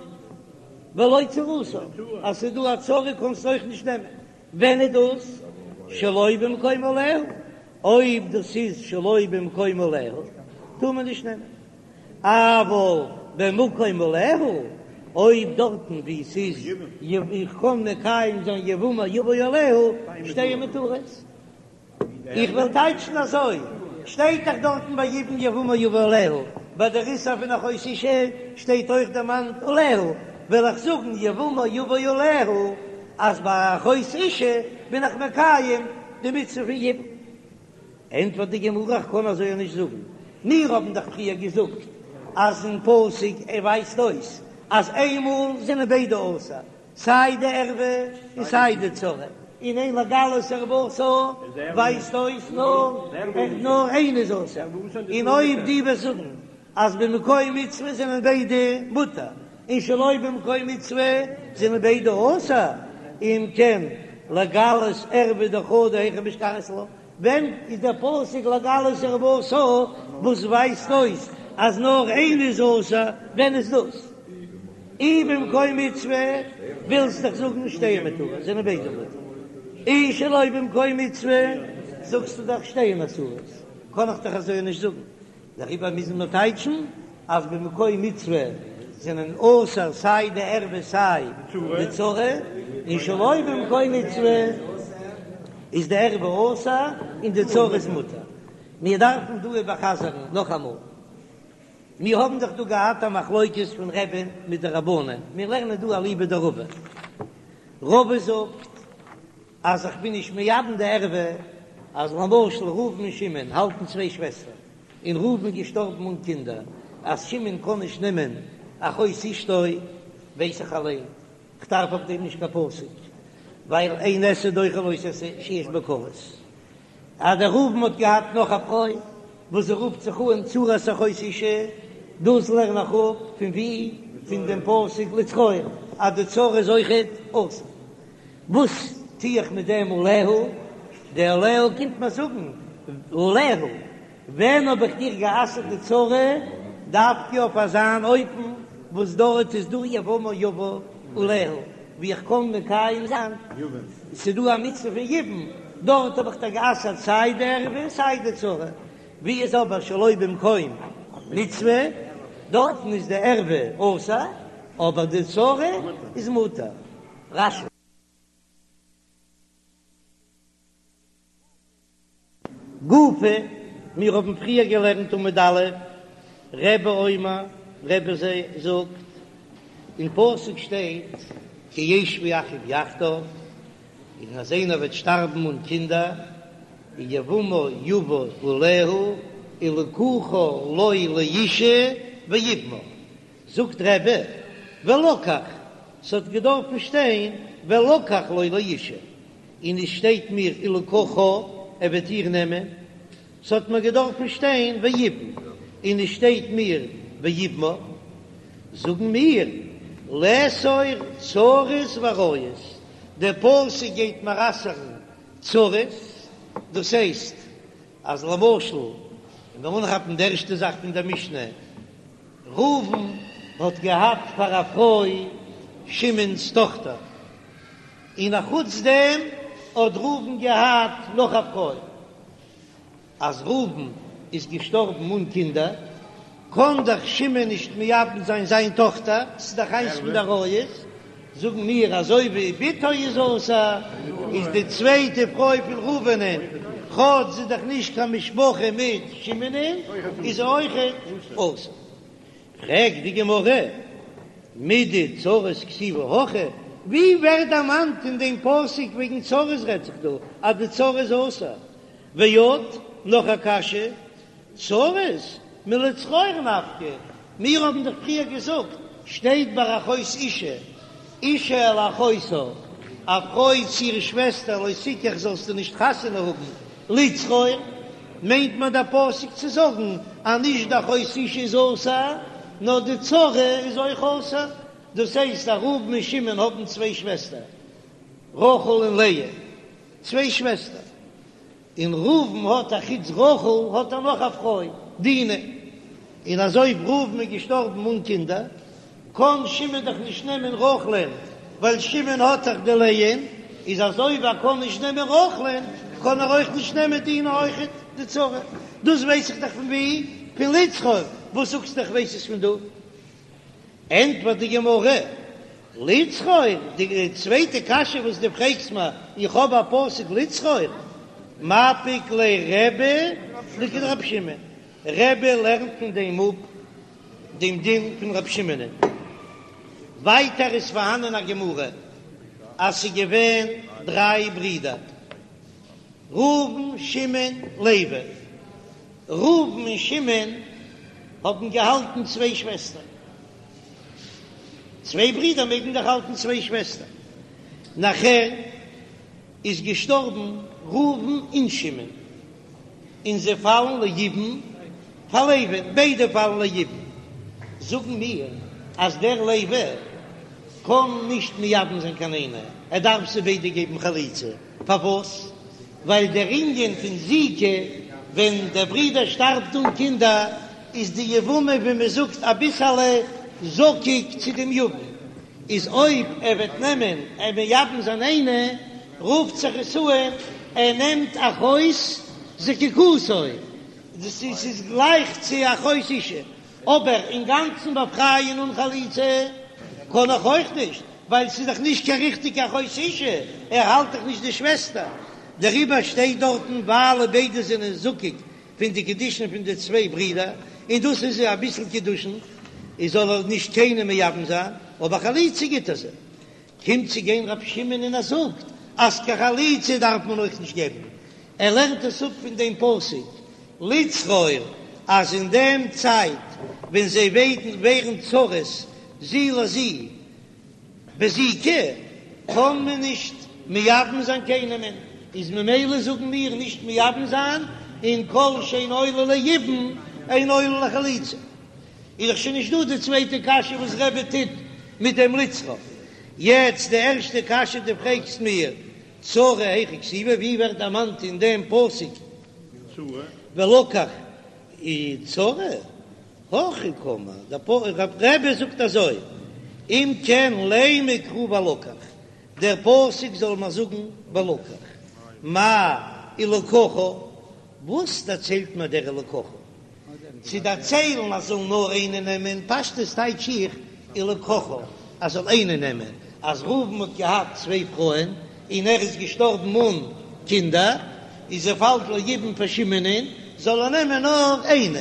ולא צרתה, אז ס'איז דא א צרה קענסטו אויך נישט נעמען, ווען איז דאס? שלא במקום עליה, אויב דאס איז שלא במקום עליה טאר מען נישט נעמען, אבל במקום עליה, אויב דארטן וואו ס'איז איך קען מקיים זיין יבמה יבא עליה, שתיהן מותרות. איך וועל טייטשן אזוי, שטייט דאך דארטן ביי יבום יבמה יבא עליה, ביי דער איסור פון אחות אשה שטייט אויך דערמאנט עליה, וועל איך זאגן יבמה יבא עליה, אז ביי אחות אשה בין איך מקיים די מצוה פון יבום. ענטפערט די גמרא, איך קען אזוי נישט זאגן, מיר האבן דאך פריער געזאגט אז אין פסוק ער ווייזט אויס אז איינמאל זענען ביידע אסור, סיי די ערווה און סיי די צרה, און אין לגלות ערותה ווייזט אויס נאר נאר איינע איז אסור, און אויב דו וועסט זאגן אז במקום מצוה זענען ביידע מותר, און שלא במקום מצוה זענען ביידע אסור, אם כן לגלות ערווה דחדא היכי משכחת לה, ווען איז דער פסוק לגלות ערותה וואס ווייזט אויס אז נאר איינע איז אסור, ווען איז דאס? אי במקום מצוה ווילסט דאך זאגן שתיהן מותרות זענען ביידע מותר, אי שלא במקום מצוה זאגסטו דאך שתיהן אסורות, קען איך דאך אזוי נישט זאגן, דעריבער מוזן מיר טייטשן אז במקום מצוה זענען אסור סיי די ערווה סיי די צרה, און שלא במקום מצוה איז די ערווה אסור און די צרה איז מותר. מיר דארפן דא איבערחזר'ן נאכאמאל, מיר האבן דאך דא געהאט א מחלוקת פון רבי'ן מיט די רבנן, מיר לערנען דא אליבא דרבא, רבא זאגט אז איך בין נישט מייבם די ערווה, אז למשל ראובן און שמעון האלטן צוויי שוועסטער, און ראובן איז געשטארבן אן קינדער, אז שמעון קען נישט נעמען אחות אשתו, ווייס איך אליין, כ'דארף אויף דעם נישט קיין פסוק, ווייל אין עשה דוחה לא תעשה שיש בו כרת. אז דער ראובן האט געהאט נאך א פרוי וואס זי רופט זיך אן צרת אחות אשה, דאס לערן איך אפ פון ווי? פון דעם פסוק לצרור אז די צרה איז אויכעט אסור. וואס טו איך מיט דעם עליה? די עליה קומט מיר זאגן עליה, ווען האב איך דיר גע'אסר'ט די צרה? דווקא אויף אזאן אופן וואס דארט איז דא יבמה יבא עליה, ווי איך קען מקיים זיין, ס'איז דא א מצוה פון יבום, דארט האב איך דיר גע'אסר'ט סיי די ערווה סיי די צרה, ווי איז אבער שלא במקום מצוה, דארטן איז די ערווה אסור, אבער די צרה איז מותר. רש"י. גופא, מיר האבן פריער געלערנט עמוד א', רבי אומר, רבי זאגט, אין פסוק שטייט כי ישבו אחים יחדיו, און אז איינער וועט שטארבן אן קינדער, ויבמה יבא עליה ולקחה לו לאשה ויבמה, זאגט רבי, ולקח, ס'האט געדארפן שטיין ולקח לו לאשה, און עס שטייט מיר ולקחה, ער וועט איר נעמען, ס'האט מיר געדארפן שטיין ויבם, און עס שטייט מיר ויבמה, זאגן מיר, לאסור צרות ועריות, דער פסוק גייט מיר אסר'ן. צרות, דאס הייסט אז למשל, און מיר אנכאפן די ערשטע זאך פון דער משנה, ראובן האט געהאט פאר א פרוי שמעון'ס טאכטער, און אחוץ דעם האט ראובן געהאט נאך א פרוי. אז ראובן איז געשטארבן אן קינדער, קען דאך שמעון נישט מייבם זיין זיין טאכטער, ס'איז דאך איינס פון די עריות, זאגן מיר אזוי ווי בתו איז אסור, איז די צווייטע פרוי פון ראובנ'ען, כאטש זי איז דאך נישט קיין משפחה מיט שמעונ'ען, איז זי אויכעט אסור. פרעגט די גמרא, מידי צרות כתיבא הכא, ווי ווערט דערמאנט אין דעם פסוק וועגן צרות רעדט זיך דא אז די צרה איז אסור? ועוד, נאך א קשיא, צרות מלצרור נפקא, מיר האבן דאך פריער געזאגט, שטייט ביי אחות אשה, אשה אל אחותה, א פרוי צו איר שוועסטער לא תקח זאלסטו נישט חתונה האבן, לצרור, מיינט מען דער פסוק צו זאגן אז נישט די אחות אשה איז אסור, נאר די צרה איז אויך אסור, דאס הייסט אז ראובן און שמעון האבן צוויי שוועסטער, רחל און לאה. צוויי שוועסטער, און ראובן האט א חוץ רחל האט ער נאך א פרוי דינה, און אז אויב ראובן איז געשטארבן אן קינדער קען שמעון דאך נישט נעמען רחל'ען ווייל שמעון האט דאך די לאה'ן, איז אז אויב ער קען נישט נעמען רחל'ען קען ער אויך נישט נעמען דינה אויכעט די צרה, דאס ווייס איך דאך פון ווי? פון לצרור, וואס זאגסטו איך ווייס עס פון דא? ענטפערט די גמרא, לצרור, די צווייטע קשיא וואס דו פרעגסט מיר, איך האב א פסוק לצרור, מפיק ליה רבי לכדרבי שמעון, רבי לערנט פון דעם אפ דעם דין פון רבי שמעונ'ען. ווייטער איז פארהאנען א גמרא אז ס'איז געווען דריי ברידער, ראובן, שמעון, לוי. ראובן און שמעון האבן געהאלטן צוויי שוועסטער. צוויי ברידער מעגן דאך האלטן צוויי שוועסטער. נאכער איז געשטארבן ראובן און שמעון, און זיי פאלן ליבום פאר לוי'ן, ביידע פאלן ליבום. זאגן מיר אז דער לוי קען נישט מייבם זיין קיין איינע, ער דארף זיי ביידע געבן חליצה. פארוואס? ווייל דער ענין פון זיקה, ווען דער ברודער שטארבט אן קינדער, איז די יבמה ווי מען זאגט אביסעלע זקוק צו דעם יבם, איז אויב ער וועט נעמען און מייבם זיין איינע, רופט זיך עס אן ער נעמט אחות זקוקתו, דאס איז גלייך צו אחות אשה, אבער אינגאנצן באפרייען אן חליצה קען איך אויך נישט, ווייל ס'איז דאך נישט קיין ריכטיגע אחות אשה, ער האלט דאך נישט די שוועסטער, דעריבער שטייט דארטן ווייל ביידע זענען זקוק פון די קידושין פון די צוויי ברידער, און דאס איז אביסל קידושין, איז זאל ער נישט קיינעם מייבם זיין, אבער חליצה גיט ער זיי. קומט צו גיין רבי שמעון און ער זאגט אז קיין חליצה דארף מען אויך נישט געבן, ער לערנט עס אפ פון דעם פסוק לצרור אז אין דעם צייט ווען זיי ווערן צרות זו לזו בזיקה קען מען נישט מייבם זיין קיינעמען, איז ממילא זאגן מיר נישט מייבם זיין, און כל שאין עולה ליבום אין עולה לחליצה. איז דאך שוין נישט דא די צווייטע קשיא וואס רבי טוט מיט דעם לצרור. יעצט די ערשטע קשיא דו פרעגסט מיר צרה היכא כתיבא ווי ווערט דערמאנט אין דעם פסוק ולקח צרה הכי קאמר דער רבי זאגט אזוי אם כן לימא קרא ולקח דער פסוק זאל מיר זאגן ולקח מאי ולקחה וואס דערציילט מיר דער ולקחה צו דערציילן אז זאל נאר איינער נעמען, פשטות טייטש איך ולקחה אז זאל איינער נעמען, אז ראובן האט געהאט צוויי פרויען און ער איז געשטארבן אן קינדער, איז זי פאלט ליבום פאר שמעונ'ען, זאל ער נעמען נאר איינע,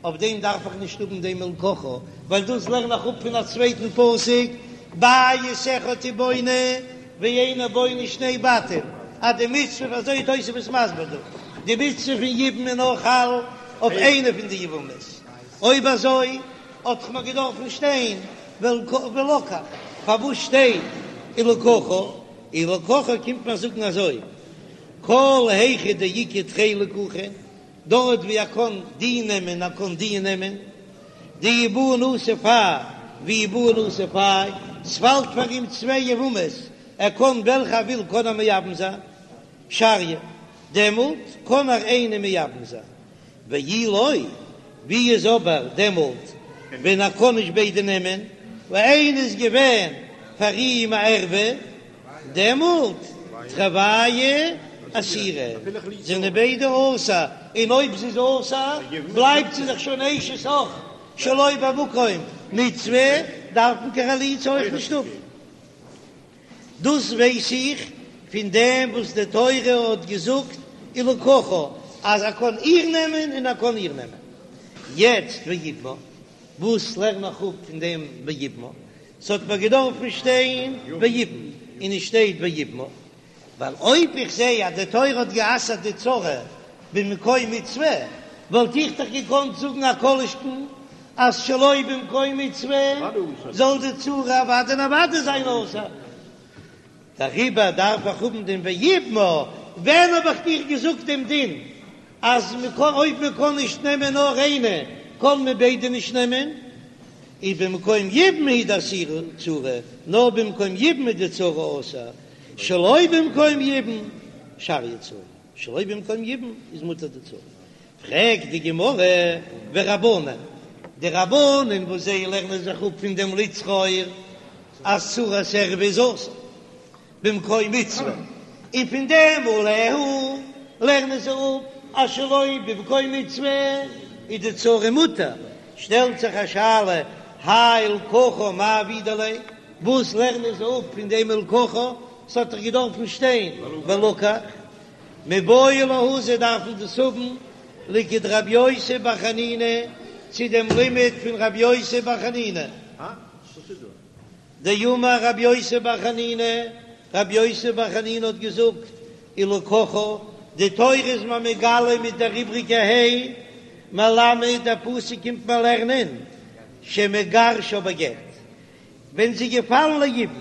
אויף דעם דארף איך נישט האבן דעם ולקחה, ווייל דאס לערן איך אפ פון א צווייטן פסוק, בית אחד הוא בונה ואינו בונה שני בתים, אז די מצוה, אזוי איז תוספות מסביר דא, די מצוה פון יבום איז נאר חל אויף איינע פון די יבמות, אויב אזוי האט דאך מיר געדארפן שטיין ולקח, פארוואס שטייט ולקחה? ולקחה קומט מיר זאגן אזוי, כל היכא דאיכא תרי לקוחין, דארט ווי ער קען די נעמען ער קען די נעמען, דאי בעי נסיב האי ואי בעי נסיב האי, ס'פאלט פאר אים צוויי יבמות, ער קען וועלכע ער וויל קען ער מייבם זיין. שריא, דעמאלט קען ער איינע מייבם זיין, ואי לא, ווי איז אבער דעמאלט ווען ער קען נישט ביידע נעמען, ווייל איינע איז געווען פאר אים א ערווה, דעמאלט תרוייהו אסירי, זענען ביידע אסור, און אויב זי איז אסור בלייבט זי דאך שוין אשת אח שלא במקום מצוה, דארף מען קיין חליצה אויך נישט האבן. דאס ווייס איך פון דעם וואס די תורה האט געזאגט ולקחה אז ער קען איר נעמען און ער קען איר נעמען. יעצט ויבמה, וואס לערן איך אפ פון דעם ויבמה? ס'האט מיר געדארפן שטיין ויבם און עס שטייט ויבמה, ווייל אויב איך זע אז די תורה האט גע'אסר'ט די צרה במקום מצוה, וואלט איך דאך געקאנט זאגן א כל שכן אז שלא במקום מצוה זאל די צרה אוודאי און אוודאי זיין אסור. דעריבער דארף איך האבן דעם ויבמה. ווען האב איך דיר געזאגט דעם דין אז מ'קען אויב מ'קען נישט נעמען נאר איינע קען מען ביידע נישט נעמען? איז במקום יבום הוא דאסירא צרה, נאר במקום יבום איז די צרה אסור, שלא במקום יבום שריא צרה, שלא במקום יבום איז מותר די צרה. פרעגט די גמרא ורבנן, די רבנן וואס זיי לערנען זיך אפ פון דעם לצרור אז צרת ערווה איז אסור במקום מצוה, און פון דעם עליה לערנען זיי אפ אז שלא במקום מצוה איז די צרה מותר, שטעלט זיך א שאלה, האי ולקחה מאי עבידי ליה, וואס לערנען זיי אפ פון דעם ולקחה, ס'האט דאך געדארפן שטיין ולקח. מיבעי להו זיי דארפן דאס האבן לכדרבי יוסי בר חנינא צו דעם לימוד פון רבי יוסי בר חנינא דאמר רבי יוסי בר חנינא, רבי יוסי בר חנינא האט געזאגט ולקחה, די תורה איז מיר מגלה מיט דער איבריגע ה' מלמד דער פסוק קומט מיר לערנען שמגרשה בגט ווען זי איז געפאלן ליבום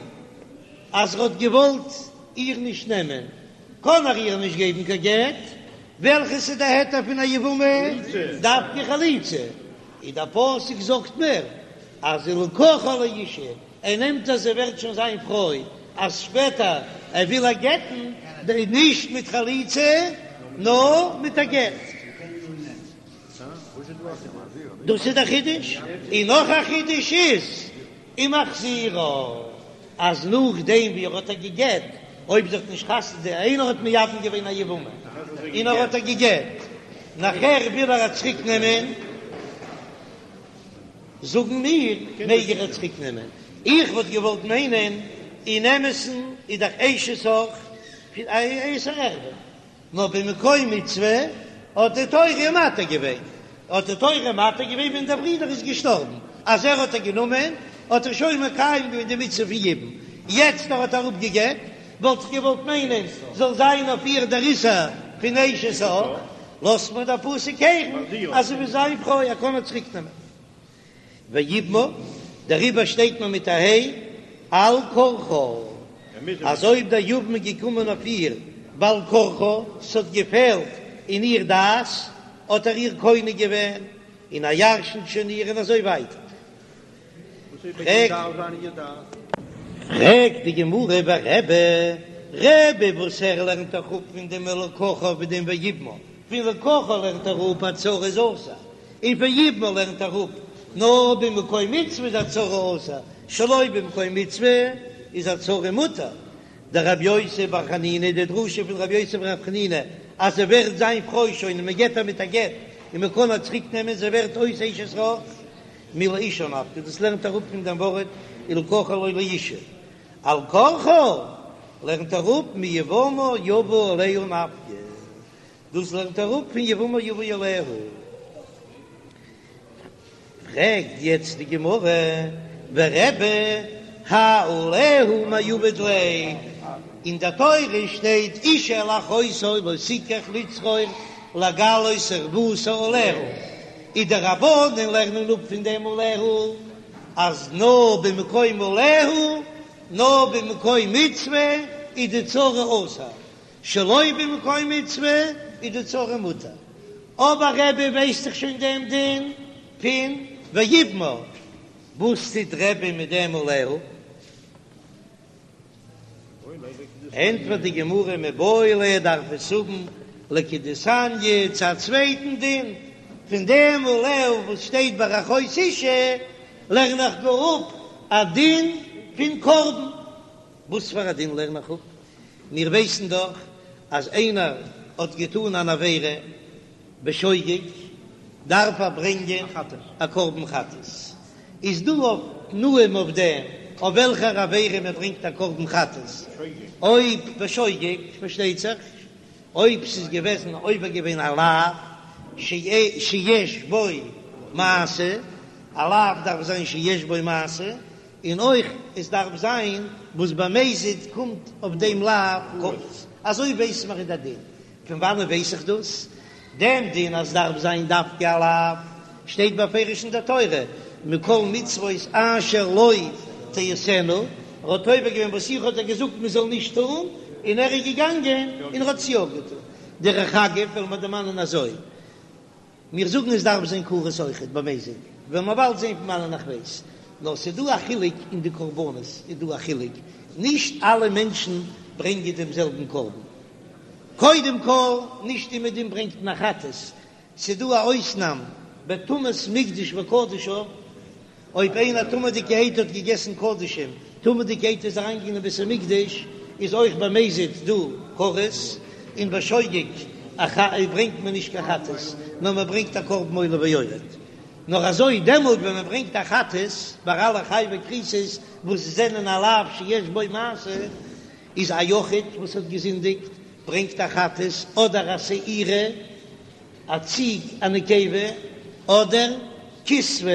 אז ער האט געוואלט איר נישט נעמען, קען ער איר נישט געבן קיין גט, וועלכעס איז די היתר פון א יבמה? דווקא חליצה, און דער פסוק זאגט מיר אז ולקחה לאשה, ער נעמט אז זי ווערט שוין זיין פרוי, אז שפעטער ער וויל איר גט'ן, נישט מיט חליצה נאר מיט א גט. דאס איז דער חידוש, און נאך א חידוש איז ומחזירה, אז נאכדעם ווי ער האט איר גע'גט, אויב זי האט נישט חתונה, איינער האט מייבם געווען א יבמה און ער האט איר גע'גט, נאכער וויל ער איר צוריק נעמען, זאגן מיר, מעג ער איר צוריק נעמען? איך וואלט געוואלט מיינען, אין אמת'ן איז דאך אשת אח א איסור ערווה. נאר במקום מצוה האט די תורה מתיר געווען, האט די תורה מתיר געווען ווען דער ברודער איז געשטארבן, אז ער האט איר גענומען האט ער שוין מקיים געווען די מצוה פון יבום, יעצט ער האט איר אפגעגט, וואלט איך געוואלט מיינען זאל זיין אויף איר דער איסור פון אשת אח, לאזט מיר דער פסוק הערן אז זי איז זיין פרוי ער קען איר צוריק נעמען. ויבמה, דעריבער שטייט מען מיט א ה' על כרחה, אז אויב דער יבם איז געקומען אויף איר בעל כרחה, ס'האט געפעלט אין איר דעת, האט ער איר קונה געווען, און ער ירשנט שוין איר און אזוי ווייטער. פרעגט די גמרא ורבי, רבי וואס ער לערנט דאך אפ פון דעם ולקחה און דעם ויבמה, פון ולקחה לערנט ער אפ אז צרה איז אסור, און פון ויבמה לערנט ער אפ נאר במקום מצוה איז א צרה אסור, שלא במקום מצוה איז א צרה מותר. דרבי יוסי בר חנינא, די דרשה פון רבי יוסי בר חנינא אז זי ווערט זיין פרוי שוין און מען גט איר מיט א גט און מען קען איר צוריק נעמען זי ווערט אויס אשת אח מלאשה נפקא, דאס לערנט ער אפ פון דעם ווארט ולקחה לו לאשה, על כרחה לערנט ער אפ מיבמה יבא עליה נפקא. דאס לערנט ער אפ פון יבמה יבא עליה. פרעגט יעצט די גמרא, ורבי האי עליה מאי עביד ליה, אין די תורה שטייט אשה אל אחותה לא תקח לצרור לגלות ערותה עליה, איז די רבנן לערנען אפ פון דעם עליה אז נאר במקום עליה, נאר במקום מצוה איז די צרה אסור, שלא במקום מצוה איז די צרה מותר, אבער רבי ווייסט דאך שוין דעם דין פון ויבמה, וואס טוט רבי מיט דעם עליה? ענטפערט די גמרא מיבעי ליה דארף עס האבן לכדתניא צו א צווייטן דין, פון דעם עליה וואס שטייט ביי אחות אשה לערן איך גאר אפ א דין פון קרבן. וואס פאר א דין לערן איך אפ? מיר ווייסן דאך אז איינער האט געטאן אן עבירה בשוגג דארף ער ברענגען א קרבן חטאת, איז דא אויף תנאים אויף דעם אויף וועלכער עבירה מען ברענגט א קרבן חטאת, אויב בשוגג פארשטייט זיך, אויב ס'איז געוועזן עובר געווען א לאו שיש בו מעשה, א לאו דארף זיין שיש בו מעשה, און אויך עס דארף זיין וואס במזיד קומט אויף דעם לאו כרת, אזוי ווייס מיר אין די דין, פון וואנען ווייס איך דאס? דעם דין אז דארף זיין דווקא א לאו שטייט בפירוש אין דער תורה, מכל מצוות אשר לא תעשינה, ער האט עובר געווען וואס איך האב דיר געזאגט מען זאל נישט טון, און ער איז געגאנגען און ער האט עס יא געטון. דרך אגב וועלן מיר דערמאנען אזוי. מיר זאגן עס דארף זיין כרת אויכעט במזיד, וועלן מיר באלד זען פון וואנען איך ווייס, נאר ס'איז דא א חילוק אין די קרבנות איז דא א חילוק, נישט אלע מענטשן ברענגען דעם זעלבן קרבן, קודם כל נישט אומעדום ברענגט מען א חטאת, ס'איז דא א אויסנאם בטומאת מקדש וקדשיו, אויב איינער טמא'דיגערהייט האט געגעסן קדשים, טמא'דיגערהייט איז אריינגעגאנגען אין בית המקדש, איז אויך במזיד דא כרת, און בשוגג ברענגט מען נישט קיין חטאת, נאר מען ברענגט א קרבן עולה ויורד. נאר אזוי דעמאלט ווען מען ברענגט א חטאת, ביי אלע חייבי כריתות וואס זענען א לאו שיש בו מעשה, איז א יחיד וואס האט געזינדיגט ברענגט א חטאת אדער א שעירה, א ציג א נקבה, אדער כשבה,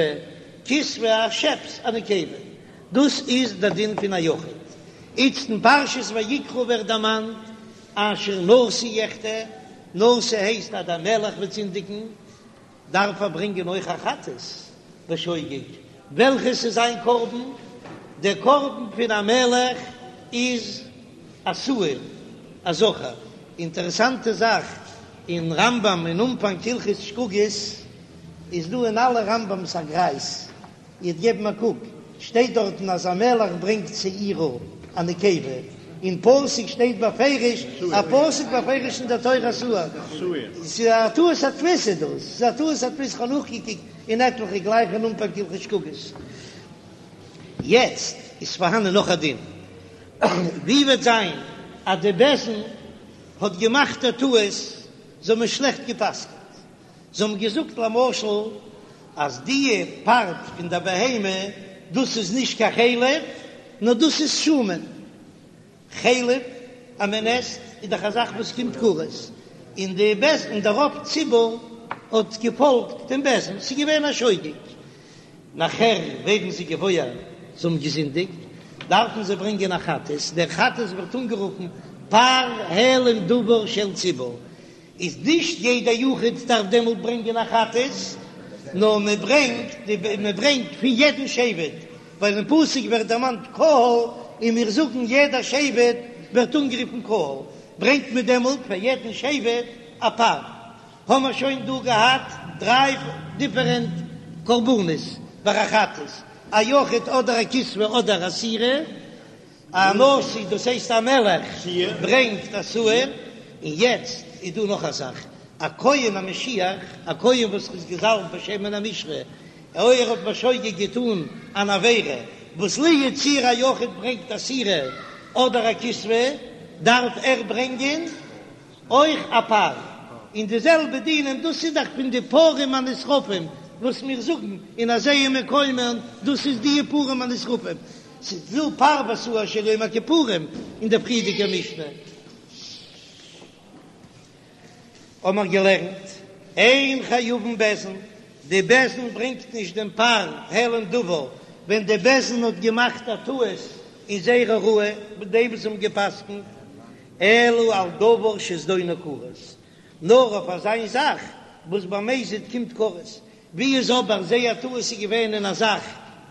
כשבה א שעפס א נקבה, דאס איז דער דין פון א יחיד. איצט אין פרשת ויקרא ווערט דערמאנט אשר נשיא יחטא, נשיא הייסט אז דער מלך וועט זינדיגן, דארף ער ברענגען אויך א חטאת בשוגג, וועלכעס איז זיין קרבן? דער קרבן פון א מלך איז א שעיר, א זכר. אינטערעסאנטע זאך, אין רמב"ם אין אנפאנג הלכות שגגות איז דא אין אלע רמב"ם'ס א גרייז, איר'ט געבן א קוק, שטייט דארטן אז א מלך ברענגט שעירה א נקבה, אין פסוק שטייט בפירוש א פסוק בפירוש אין דער תורה שעיר, ס'איז א טעות הדפוס איז דאס, ס'איז א טעות הדפוס, כ'האב נאכגעקוקט אין עטליכע גלייך אין אנפאנג הלכות שגגות. יעצט איז פארהאנען נאך א דין, ווי וועט זיין אז די בית דין האט געמאכט א טעות, זיי האבן שלעכט גע'פסק'נט, זיי האבן געזאגט למשל אז די פארט פון די בהמה דאס איז נישט קיין חלב נאר דאס איז שומן, חלב אז מען עסט איז דאך א זאך וואס קומט כרת, און די בית דין און דער רוב ציבור האט געפאלגט דעם בית דין, ס'איז געווען א שוגג. נאכער ווערן זיי געוואויר זיי האבן געזינדיגט, דארפן זיי ברענגען א חטאת, דער חטאת ווערט אנגערופן פר העלם דבר של ציבור, איז נישט יעדע יחיד דארף דעמאלט ברענגען א חטאת, נאר מען ברענגט מען ברענגט פון יעדן שבט, ווייל אין פסוק ווערט דערמאנט קהל, און מיר זאגן יעדע שבט ווערט אנגערופן קהל, ברענגט מען דעמאלט פאר יעדן שבט א פר. האמער שוין דא געהאט דריי דיפערענט קרבנות ביי א חטאת, א יחיד אדער א כשבה אדער א שעירה, א נשיא דאס הייסט א מלך ברענגט א שעיר, און יעצט איז דא נאך א זאך, א כהן המשיח, א כהן וואס איז געזאלבט בשמן המשחה, אויב ער האט בשוגג געטאן אן עבירה וואס לו יצויר א יחיד ברענגט א שעירה אדער א כשבה, דארף ער ברענגען אויך א פר, און די זעלבע דינים, דאס איז דאך פון די פרים הנשרפים וואס מיר זאגן אין הזהה מקומן, דאס איז די פרים הנשרפים, ס'איז דא פר ושעיר של יום הכיפורים אין דער פריערדיגער משנה האמער געלערנט, אין חייבין בית דין, די בית דין ברענגט נישט דעם פר העלם דבר ווען די בית דין האט געמאכט א טעות אין זייער הוראה מיט דעם וואס זיי האבן גע'פסק'נט, אלא על דבר שזדונו כרת, נאר אויף אזיין זאך וואס במזיד קומט כרת, ווי איז אבער זייער טעות איז געווען אין א זאך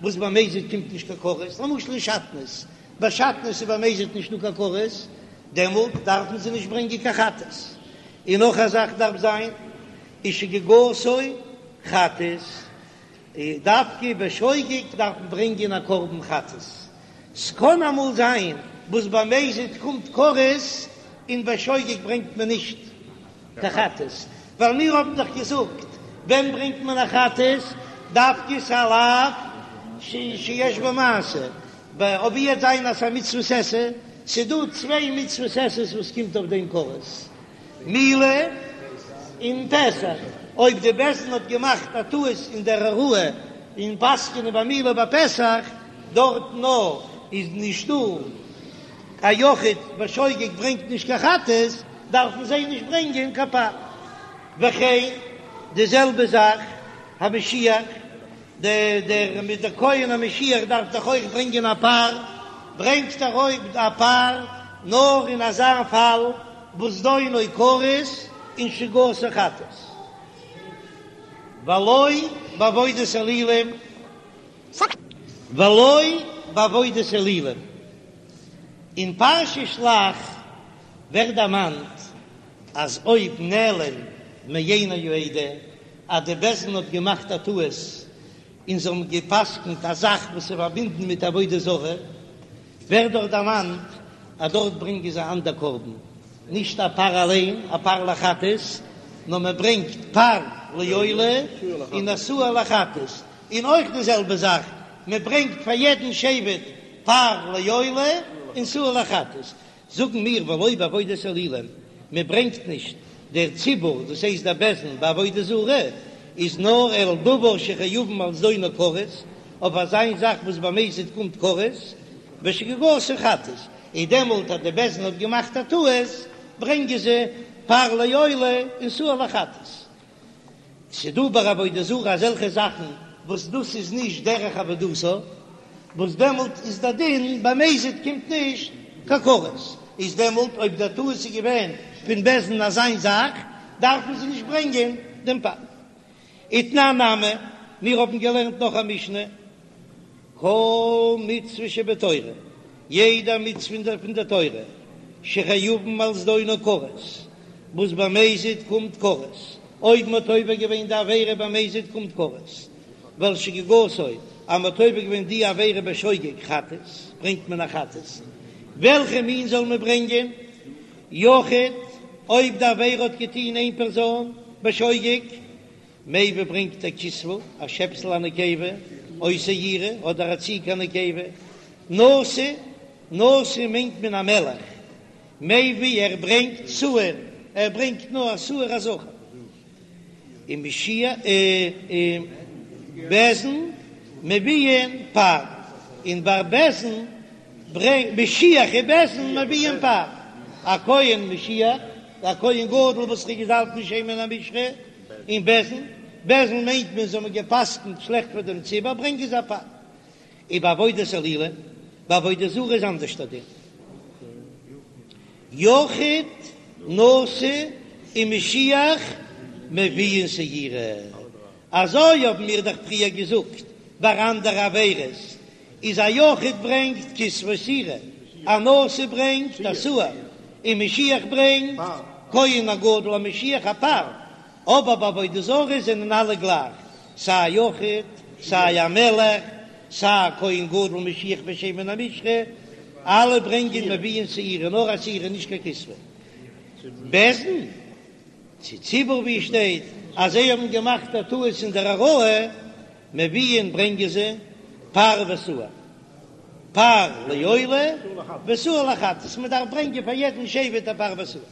וואס במזיד קומט נישט קיין כרת, למשל אין שעטנז, ביי שעטנז איז במזיד נישטא קיין כרת, דעמאלט דארפן זיי נישט ברענגען קיין חטאת. און נאך א זאך דארף זיין ושגגתו חטאת, דווקא בשוגג דארף מען ברענגען א קרבן חטאת, ס'קען אמאל זיין. וואס ביי מזיד קומט כרת און ביי שוגג ברענגט מען נישט קיין חטאת, ווייל מיר האבן דאך געזאגט ווען ברענגט מען א חטאת, דווקא ס'איז א לאו שיש בו מעשה, אויב וועט זיין אז ס'איז א מצוות עשה, ס'איז דא צוויי מצוות עשה וואס קומט אויף דעם כרת, מילה און פסח, אויב די בית דין האט געמאכט א טעות אין דער הוראה אין פסק'ענען ביי מילה ביי פסח, דארט נאר איז נישטא א יחיד בשוגג ברענגט נישט קיין חטאת, דארפן זיי נישט ברענגען קיין פר. וכן די זעלבע זאך המשיח, דער דער מיט דער כהן המשיח דארף דאך אויך ברענגען א פר, ברענגט ער אויך א פר נאר אין אזא פאל וואס זדונו כרת און שגגתו חטאת, ולא בעבודת אלילים, ולא בעבודת אלילים. אין פרשת שלח ווערט דערמאנט אז אויב נעלם מעיני העדה אז די בית דין האט געמאכט א טעות און זיי האבן גע'פסק'נט א זאך וואס איז פארבינדן מיט עבודה זרה, ווערט דארט דערמאנט אז דארט ברענגען זיי אנדער קרבן, נישט א פר אליין, א פר לחטאת, נאר מען ברענגט פר לעולה און א שעיר לחטאת, און אויך די זעלבע זאך, מען ברענגט פאר יעדן שבט פר לעולה און שעיר לחטאת, זאגן מיר ולא בעבודת אלילים, מען ברענגט נישט דער ציבור, דאס הייסט דער בית דין ביי עבודה זרה, איז נאר אלא דבר שחייבין על זדונו כרת, אויף אזיין זאך וואס במזיד קומט כרת, ושגגתו חטאת, און דעמאלט אז די בית דין האט געמאכט א טעות, ברענגען זיי פר לעולה און שעיר לחטאת. ס'דא ביי עבודה זרה אזעלכע זאכן וואס דאס איז נישט דרך עבודתה, וואס דעמאלט איז דער דין במזיד קומט נישט קיין כרת, איז דעמאלט אויב דער טעות איז געווען פון בית דין אזיין זאך, דארפן זיי נישט ברענגען דעם פר. ותנן נמי, מיר האבן געלערנט נאך א משנה, כל מצוה שבתורה, יעדע מצוה פון דער תורה, שחייבין על זדונו כרת, וואס במזיד קומט כרת, אויב מ'האט עובר געווען די עבירה במזיד קומט כרת, ועל שגגתו, אז מ'האט עובר געווען די עבירה בשוגג חטאת, ברענגט מען א חטאת. וועלכע מין זאל מען ברענגען? יחיד, אויב די עבירה האט געטון איין פערזאן בשוגג, מביא ברענגט ער כשבה, א שעפסל א נקבה, או שעירה, אדער א ציג א נקבה, נשיא, נשיא מיינט מען א מלך, מביא ער ברענגט שעיר, ער ברענגט נאר א שעיר א זכר, און משיח און בית דין מביאין פר, און ביי בית דין ברענגט משיח און בית דין מביאין פר, א כהן משיח, א כהן גדול וואס איז געזאלבט מיט שמן המשחה, און בית דין, בית דין מיינט מען זיי האבן גע'פסק'נט שלעכט פאר דעם ציבור, ברענגען זיי א פר. ובעבודת אלילים, ביי עבודה זרה איז אנדערש דער דין. יחיד, נשיא און משיח מביאין שעירה. אזוי האבן מיר דאך פריער געזאגט ביי אנדערע עבירות, איז א יחיד ברענגט כשבה ושעירה, א נשיא ברענגט א שעיר, און משיח ברענגט כהן הגדול המשיח א פר, אבער ביי עבודה זרה זענען אלע גלייך, סיי א יחיד, סיי א מלך, סיי א כהן גדול משיח בשמן המשחה, אלע ברענגען מביאין שעירה, נאר א שעירה נישט קיין כשבה. בית דין צו ציבור ווי שטייט אז זיי האבן געמאכט א טעות אין דער הוראה, מביאין ברענגען זיי פר ושעיר, פר לעולה ושעיר לחטאת, מען דארף ברענגען פאר יעדן שבט א פר ושעיר.